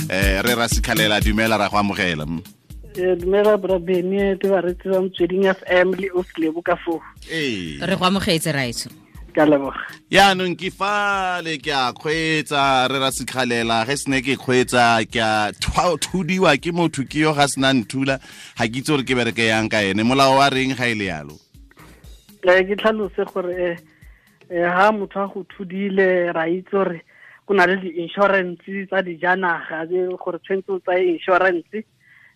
Re ra Sikhalela, dumela, ra go amogela. Dumela bra Bene le baretsi ba Motsweding FM le Oslebo ka foo. Ee. Re go amogetse, raetso. Ka leboga. Yaanong ke fale ke a kgweetsa, re ra Sikhalela, ge sene ke kgweetsa ke a thudiwa ke motho ke yo ga sena nthula, ga ke itse gore ke bereke yang ka ene. Molao wa reng ga e le yalo? Ke tlhalose gore ha motho a go thudile, ra itse gore go na le di-insurance tsa dijanaga gore tshwanetse o tsaye insurance,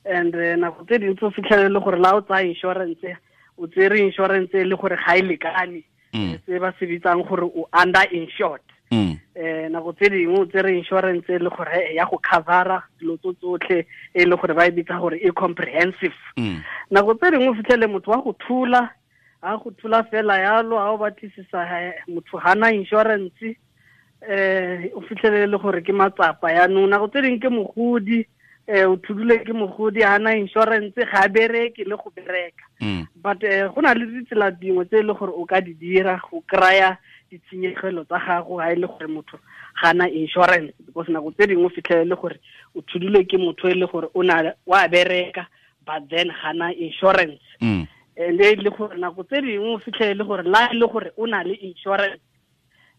and nako tse dintsi o fitlhelele gore la o tsaya insurance, o tsere insurance e le gore ga e lekane, se ba se bitsang gore o under insured. Nako tse dingwe o tsere insurance e le gore ya go covera dilo tso tsotlhe, e le gore ba e bitsa gore e comprehensive. Nako tse dingwe o fitlhele motho wa go thula, a go thula fela yalo, a o batlisisa motho hana insurance, o fitlhele le gore ke matsapa yaanong. Nako tse dingwe ke mogodi, o thudule ke mogodi, hana insurance, ga bereke le go bereka. But go na le ditsela dingwe tse e le gore o ka di dira go kry-a ditshenyegelo tsa gago ga e le gore motho ga na insurance, because nako tse dingwe o fitlhele le gore o thudule ke motho e le gore o na wa bereka but then ga na insurance. And e le gore nako tse dingwe o fitlhele le gore la e le gore o na le insurance,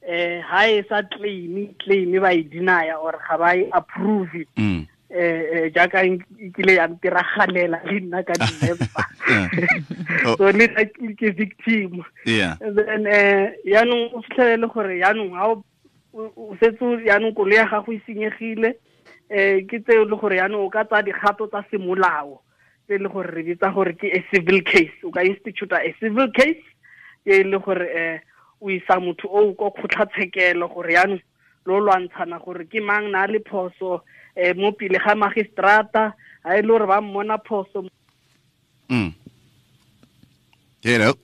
ha e sa claim ba e deny or ga ba e approve. Jaaka e kile ya ntiragalela le nna ka December. So le nna ke victim. And then yaanong o fitlhele le gore yaanong ha o setse yaanong koloi ya gago e senyegile, ke tseo le gore yaanong o ka tsaya dikgato tsa semolao tse le gore re bitsa gore ke a civil case. O ka institute a civil case e le gore o isa motho o ko kgotlatshekelo gore yaanong lo lwantshana gore ke mang na le phoso, mo pele ga magistrata, ha e le gore ba mmona phoso. Hello.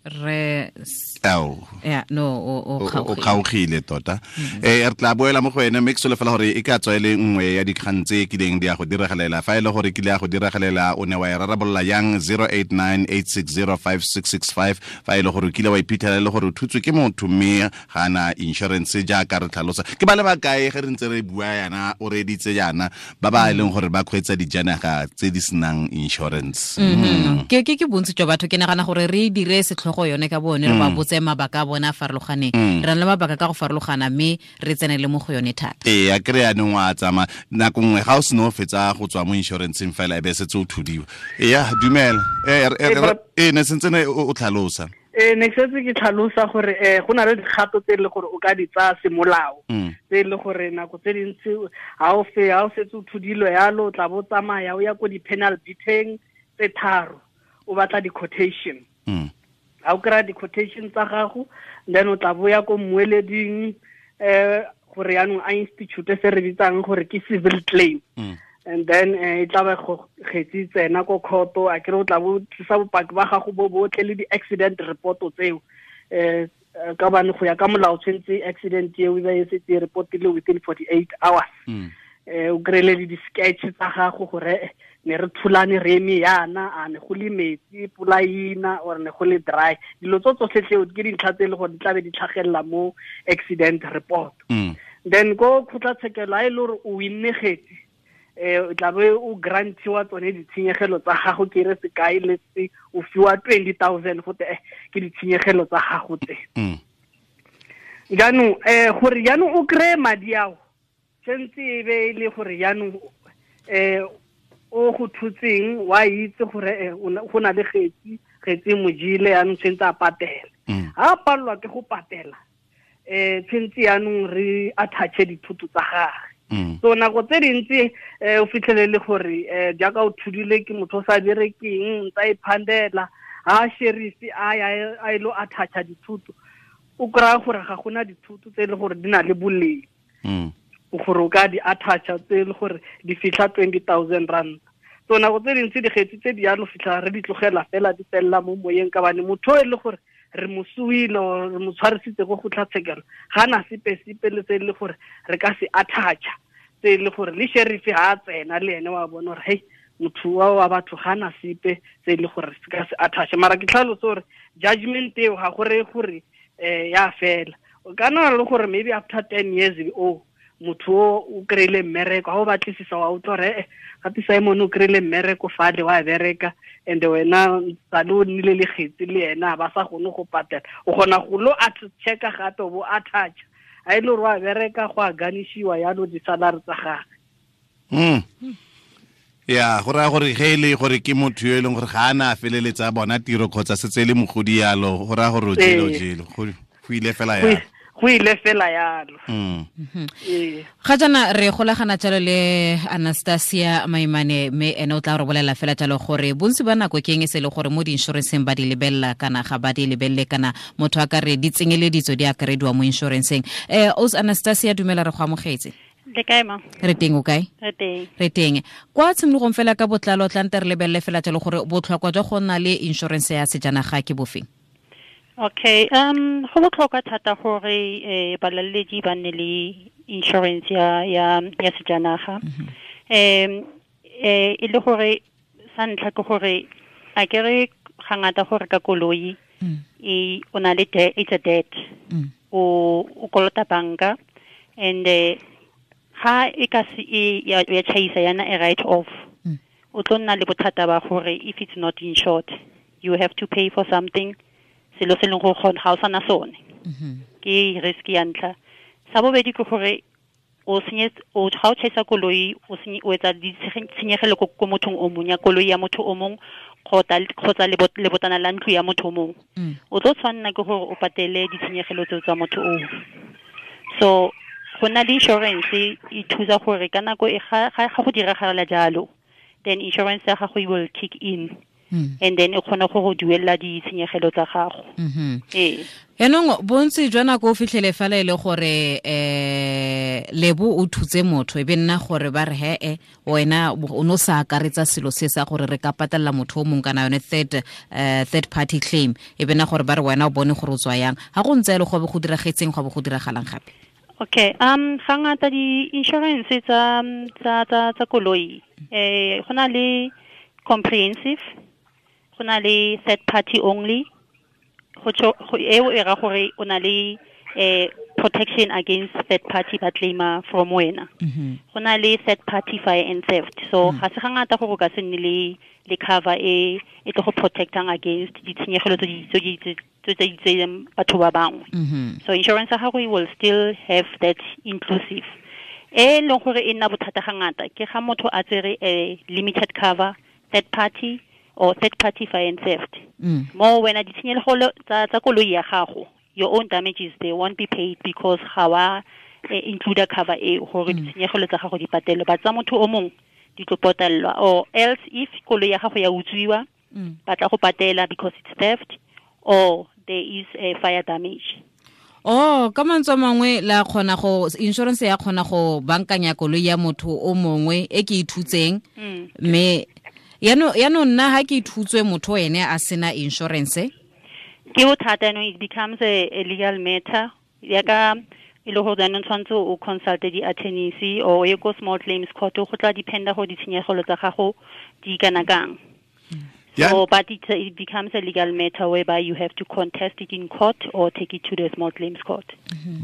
Re Ao. Yeah, no, o O kgaogile tota. Re tla boela mo go ene, mme ke solofela gore e ka tswa e le nngwe ya dikgang tse kileng di a go diragalela. Fa e le gore kile ya go diragalela, o ne wa e rarabolola yang? 0898605665. Fa e le gore o kile wa iphitlhela e le gore o thutswe ke motho mme ga ana insurance jaaka re tlhalosa. Ke ba le ba kae ge re ntse re bua yana, o reeditse yana, ba ba e leng gore ba kgweetsa dijanaga tse di senang insurance? Ke bontsi jwa batho, ke nagana gore re dire setlhogo yone ka bone, re ba botse mabaka a bona a farologaneng. Re na le mabaka ka go farologana, mme re tsenele mo go yone thata. Ee, a kry yanong wa tsamaya nako nngwe ga o seno o fetsa go tswa mo insuranceng fela e be setse o thudiwa. Eya, dumela. Ne sentse ne o tlhalosa. Ne ke setse ke tlhalosa gore go na le dikgato tse e le gore o ka di tsaya semolao, tse e le gore nako tse dintsi ha o setse o thudilwe yalo, o tla bo tsamaya o ya ko di-panel beating tse 3, o batla di-quotation. Ha o kry-a di-quotation tsa gago, then o tla boya ko mmueleding, gore yaanong a institute se re bitsang gore ke civil claim. And then e tla ba go kgetsi tsena ko court, a kere o tla bo tlisa bopaki ba gago bo botlhe le di-accident report tseo. Ka bane go ya ka molao tshwanetse accident eo e be e setse e reportile within 48 hours. O kry-ele le di-sketch tsa gago gore ne re thulane re eme yana, a ne go le metsi pula ina or ne go le dry. Dilo tso tsotlhe tseo ke dintlha tse e le gore di tla be di tlhagelela mo accident report. Then ko kgotlatshekelo ha e le gore o winne kgetsi, o tla be o grantiwa tsone ditshenyegelo tsa gago, ke re sekai le se o fiwa 20,000 gote ke ditshenyegelo tsa gago tse. Jaanong gore jaanong o kry-e madi ao, tshwanetse e be e le gore jaanong o go thutseng wa itse gore go na le kgetsi mojile jaanong tshwanetse a patele. Ha a palelwa ke go patela, tshwanetse jaanong re attach-e dithoto tsa gagwe. So nako tse dintsi o fitlhele le gore jaaka o thudile ke motho o sa berekeng, ntsa e phandela, ha sheriff a ya a ilo attach-a dithoto, o kry-a gore ga gona dithoto tse e le gore di na le boleng. Gore o ka di attach-a tse e le gore di fitlha 20,000 rand. So nako tse dintsi dikgetsi tse di yalo fitlha re di tlogela fela di felela mo moyeng, ka bane motho e le gore re mo suile or re mo tshwarisitse ko kgotlatshekelo ga na sepe sepe le tse e le gore re ka se attach-a, tse e le gore le sheriff ha a tsena le ene wa bona gore hei motho wa batho ga na sepe tse e le gore se ka se attach-a. Mara ke tlhalose gore judgment eo ga go reye gore ya fela. O ka nna le gore maybe after 10 years o Motho o kry-ile mmereko, ga o batlisisa wa utlwa gore gape Simon o kry-ile mmereko fale wa bereka, and wena sale o nnile le kgetsi le ena ba sa kgone go patela. O kgona go lo checka gape o bo attach a ile gore wa bereka go a ganishiwa yalo di-salary tsa gagwe. Ya go raya gore ge e le gore ke motho yo e leng gore ga a na a feleletsa bona tiro kgotsa setse e le mogodi yalo, go raya gore o jele go ile fela yalo. Go ile fela yalo. Ga jaana re golagana jalo le Anastasia Maimane, mme ene o tla re bolela fela jalo gore bontsi ba nako ke eng e se le gore mo di-insuranceng ba di lebelela kana ga ba di lebelele, kana motho a ka re di tsenyeleditso di akarediwa mo insuranceng. Os Anastasia, dumela, re go amogetse. Le kae ma? Re teng, o kae? Re teng. Re teng. Kwa tshimologong fela ka botlalo tla nte re lebelele fela jalo gore botlhokwa jwa go nna le insurance ya sejanaga ke bofeng? Okay, go botlhokwa thata gore balaledi ba nne le insurance ya sejanaga. E le gore sa ntlha ke gore a ke re ga ngata gore ka koloi e o na le it's a debt. O kolota banka, and ga e ka se ya chaisa yana a write off. O tlo nna le bothata ba gore if it's not insured, you have to pay for something selo se leng gore ga o sana sone. Ke risk ya ntlha. Sa bobedi ke gore o ga o chaisa koloi, o etsa ditshenyegelo ko mothong o mong, ya koloi ya motho o mong kgotsa lebotana la ntlo ya motho o mong. O tlo tshwanela ke gore o patele ditshenyegelo tseo tsa motho oo. So go nna le insurance e thusa gore ka nako e ga go diragala jalo, then insurance ya gago will kick in. And then e kgona go go duela ditshenyegelo tsa gago. Ee. Yaanong bontsi jwa nako o fitlhele fela e le gore lebo o thutse motho, e be nna gore ba re he wena o no sa akaretsa selo se sa gore re ka patella motho o mongwe kana yone third party claim, e be nna gore ba re wena o bone gore o tswa yang. Ga go ntse e le go be go diragetseng, go be go diragalang gape? Okay, ga ngata di-insurance tsa koloi, go na le comprehensive, go na le third party only, go eo e ra gore o na le protection against third party ba claima from wena. Go na le third party fire and theft. So ga se ga ngata gore o ka se nne le cover e tlo go protectang against ditshenyegelo tse di tseyang batho ba bangwe. So insurance ya gago will still have that inclusive. E leng gore e nna bothata ga ngata ke ga motho a tsere a limited cover, third party or third party fire and theft. Mo wena ditshenyegelo tsa koloi ya gago, your own damages, they won't be paid because ga wa include cover e gore ditshenyegelo tsa gago di patelwe, ba tsa motho o mongwe di tlo patellwa, or else if koloi ya gago ya utswiwa, ba tla go patela because it's theft or there is a fire damage. Oh, ka mantswe mangwe la kgona go insurance ya kgona go bankanya koloi ya motho o mongwe e ke ithutseng, mme yano nna ha ke ithutswe motho ene a sena insurance, ke bothata. No, it becomes a legal matter. Ya ka e le gore jaanong tshwanetse o consulte di-attorneys or ye ko small claims court, go tla dependa go ditshenyegelo tsa gago di kana kang. So, but it becomes a legal matter whereby you have to contest it in court or take it to the small claims court.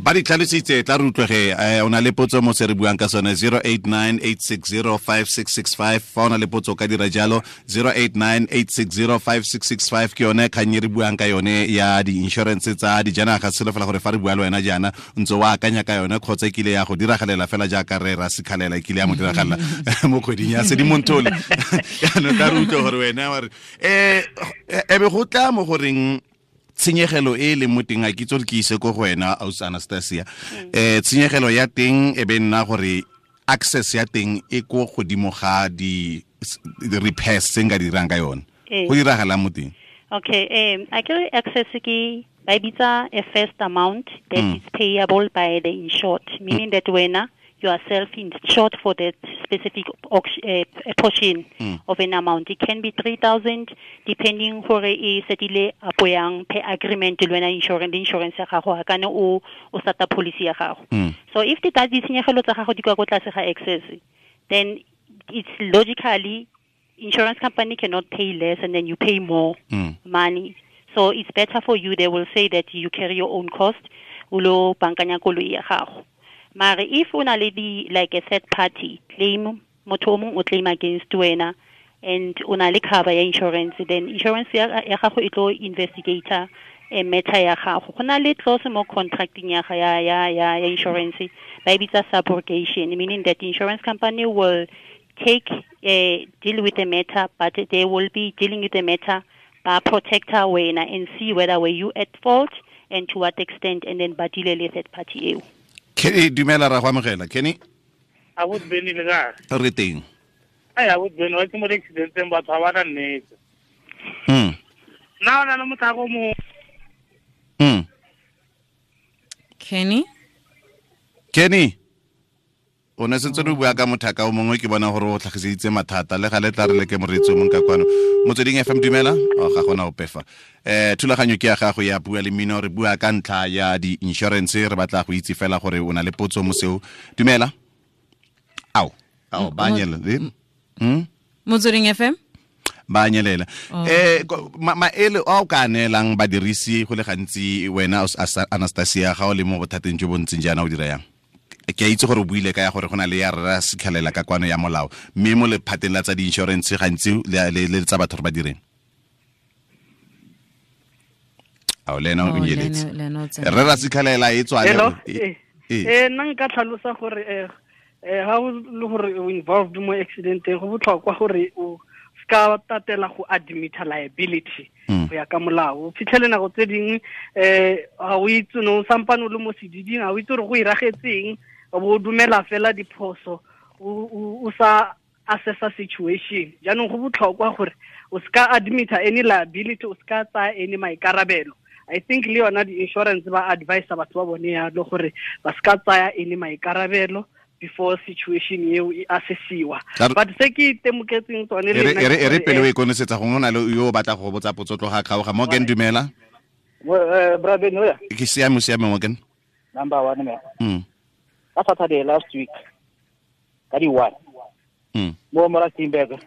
Ba di tlhalositse, tla re utlwege. O na le potso mo se re buang ka sone, 0898605665. Fa o na le potso ka dira jalo, 0898605665 ke yone kgang e re buang ka yone ya di-insurance tsa dijanaga. Selo fela gore fa re bua le wena jaana ntse o akanya ka yone kgotsa e kile ya go diragalela fela jaaka re ra sekhalela e kile ya mo diragalela mo kgweding ya Sedimonthole. Jaanong tla re utlwe gore wena wa re ebe go tla mo goreng tshenyegelo e leng mo teng, a ke itse gore ke ise ko go wena Aus Anastasia, tshenyegelo ya teng e be nna gore access ya teng e ko godimo ga di repairs tse nka dirang ka yone, go diragalang mo teng? Okay, a ke re access ke ba e bitsa a first amount that is payable by the insured, meaning that wena you are self-insured for that specific portion of an amount. It can be 3,000, depending gore e setile apo yang per agreement le wena insurance ya gago, kana o starta policy ya gago. So if the ditshenyegelo tsa gago di kwa ko tlase ga excess, then it's logically insurance company cannot pay less and then you pay more money. So it's better for you. They will say that you carry your own cost, o lo bankanya koloi ya gago. Mare if o na le di like a third party claim, motho o mongwe o claim against wena and o na le cover ya insurance, then insurance ya gago e tlo investigator e matter ya gago. Go na le clause mo contracting ya ya insurance ba e bitsa subrogation, meaning that the insurance company will take deal with the matter, but they will be dealing with the matter ba protector wena and see whether were you at fault and to what extent, and then ba deal le third party eo. Kenny, dumela ra go amogela. Kenny, a bo beni le ka re teng. Ai a bo beni wa ke mo accidenteng batho ba na nnete. Na na motho go mo Kenny o ne sentse re bua ka mothaka o mongwe, ke bona gore o tlhagiseditse mathata le ga le tla re le ke moreetsi o mongwe ka kwano. Motsweding FM, dumela. O ga gona ope fa. Thulaganyo ke ya gago ya Bua le Mmino, re bua ka ntlha ya di-insurance, re batla go itse fela gore o na le potso mo seo. Dumela. Ao ba nyelela. Motsweding FM ba nyelela. Maele a o ka neelang badirisi go le gantsi wena Anastasia ga o le mo bothateng jo bo ntseng jaana o dira yang? Ke a itse gore o buile ka ya gore go na le ya rra sekhalela ka kwano ya molao, mme mo lephateng la tsa di-insurance gantsi le tsa batho re ba direng. Ao le ena o nyeletse. Rre ra sekhalela e tswa le. Nna nka tlhalosa gore ha o le gore o involved mo accidenteng, go botlhokwa gore o ska tatela go admit liability go ya ka molao. O fitlhele nako tse dingwe ga o itse no sampane o le mo sediding, ga o itse gore go iragetseng, o bo dumela fela diphoso o sa assessa situation. Jaanong go botlhokwa gore o ska admit any liability, o ska tsaya any maikarabelo. I think le yona di-insurance ba advise batho ba bone yalo gore ba ska tsaya any maikarabelo before situation eo e assessiwa. But se ke itemoketseng tsone le nna e re pele o e konosetsa, gongwe o na le yo o batla go botsa potso tloga kgaoga. Morgan, dumela. Bra Ben, oya. Ke siame, Morgan. Number 1 me. Ka Saturday last week ka di 1. Mo mora Timberg.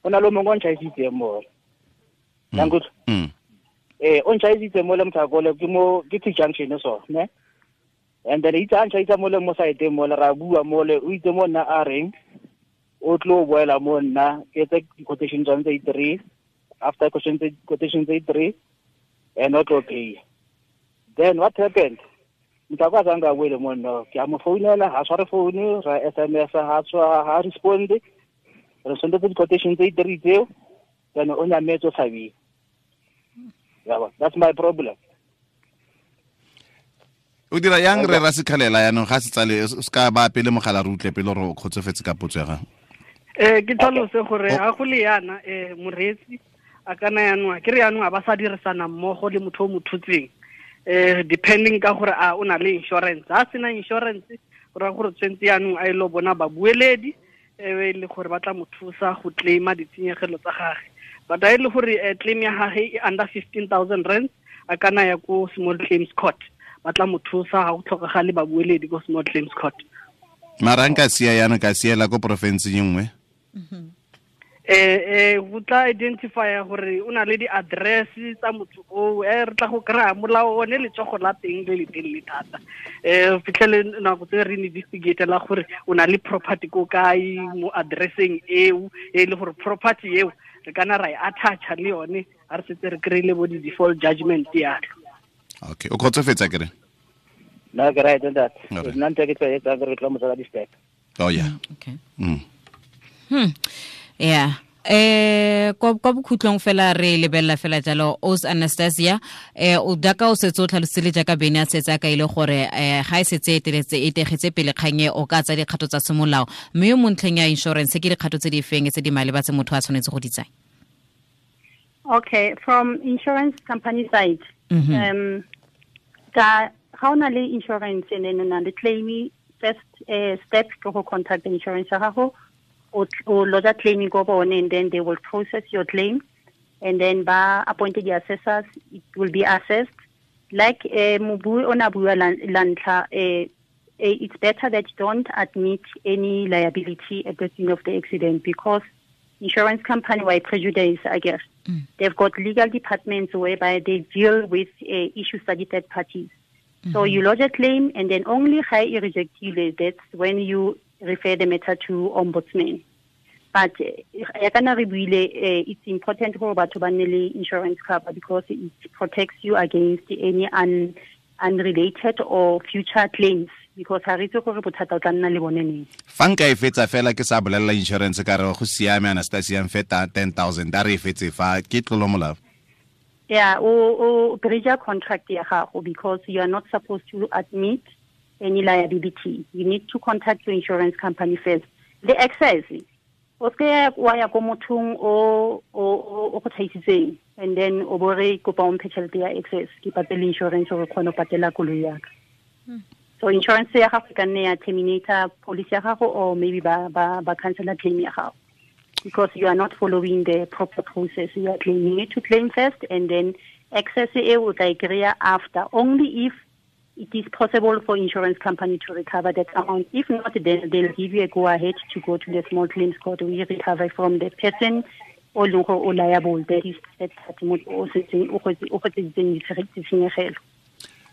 O na le mongwe o ntšhaisitse mo. Nangutlo. O ntšhaisitse mo le mthakole ke mo ke T junction so, ne? And then itse a ntšhaisa mo le mo site mo le ra bua mo le o itse mo nna a reng o tlo boela mo nna ke tse quotation tsone tse 3 after quotation tse 3 and not okay. Then what happened? Mthakwa zanga boele mo nna ke a mo founela, ha tshware phone, ra SMS ha tshwa ha respond. Re send the quotation tse 3 tseo, then o nyametse o tshabile. Yeah, that's my problem. O dira yang re ra sekhalela yanong ga se tsale o ska ba pele mogala re utlwe pele gore o kgotsofetse ka potso ya gago. Ke tlhalose gore ga go le yana moreetsi a kana yanong ke re yanong a ba sa dirisana mmogo le motho o mo thutseng, depending ka gore a o na le insurance. Ha sena insurance go ra gore tshwentse yanong a ile bona babueledi e le gore ba tla mo thusa go claima ditshenyegelo tsa gagwe. But a ile gore claim ya gagwe e under 15,000 rand, a kana ya ko small claims court, ba tla mo thusa ga go tlhokagale babueledi ko small claims court. Mara nka sia yana ka siela ko province e nngwe. Go tla identify gore o na le di-address tsa motho oo, re tla go kry-a molao one letsogo la teng le le telele thata. Fitlhele nako tse re investigate la gore o na le property ko kae mo addresseng eo, e le gore property eo re kana ra e attacha le yone ha re setse re kry-ile bo di-default judgment yalo. Okay, o kgotsofetse kere? No, ke right that. Nna ntse ke tla etsa re tla mo tsala di-step. Oh yeah. Okay. Yeah. Kwa bokhutlong fela re lebella fela jalo Os Anastasia, o daka o setse o tlhalositse jaaka Bene a setse a kaile gore ga e setse e teletse e tegetse pele kgang e o ka tsa dikgato tsa semolao, mme yo mo ntlheng ya insurance ke dikgato tse di feng tse di maleba tse motho a tshwanetse go di tsaya? Okay, from insurance company side, ka ga o na le insurance and then o na le claim, first step ke go contact the insurance ya gago, o lodge claim go bone, and then they will process your claim, and then ba appointed the assessors, it will be assessed. Like mobu ona bua lantlha, it's better that you don't admit any liability at the scene of the accident, because insurance company why prejudice, I guess. They've got legal departments whereby they deal with issues that the third parties. So you lodge a claim, and then only ga e rejectile, that's when you refer the matter to ombudsman. But ya kana re buile, it's important gore batho ba nne le insurance cover because it protects you against any unrelated or future claims, because ha re itse gore bothata o tla nna le bone neng. Fa nka e fetsa fela ke sa bolelela insurance ka re go siame, Anastasia, mfeta 10,000 a re e fetse fa, ke tlolo molao? Yeah, o breach contract ya gago, because you are not supposed to admit any liability. You need to contact your insurance company first. The excess, o se wa ya ko mothong o go thaisitseng, and then o bo re kopa o mphe tšhelete ya excess, ke patele insurance gore kgone go patela koloi ya ka. So insurance ya gago e ka nne ya terminator policy ya gago, or maybe ba cancela claim ya gago, because you are not following the proper process. You are claiming, you need to claim first, and then excess e o tla e kry-a after, only if it is possible for insurance company to recover that amount. If not, then they'll give you a go-ahead to go to the small claims court. We recover from the person o leng gore o liable, that is that motho o setseng o gotseditseng ditshenyegelo.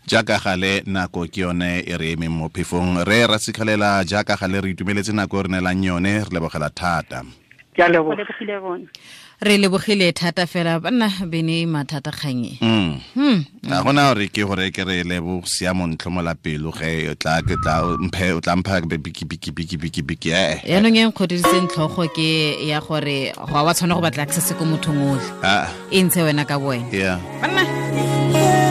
Jaaka gale nako ke yone e re emeng mo phefong, re Rasikhalela, jaaka gale re itumeletse nako e re neelang yone, re lebogela thata. Ke a leboga. Re lebogile thata fela banna bene mathata kganye. Ga gona gore ke gore ke re lebo siamo ntlhomola pelo ge o tla ke tla mphe o tla mpha biki biki biki biki biki eh. Yaanong e nkgodisitseng tlhogo ke ya gore ga wa tshwana go batla access ko mothong otlhe. E ntshe wena ka boena. Yeah. Banna.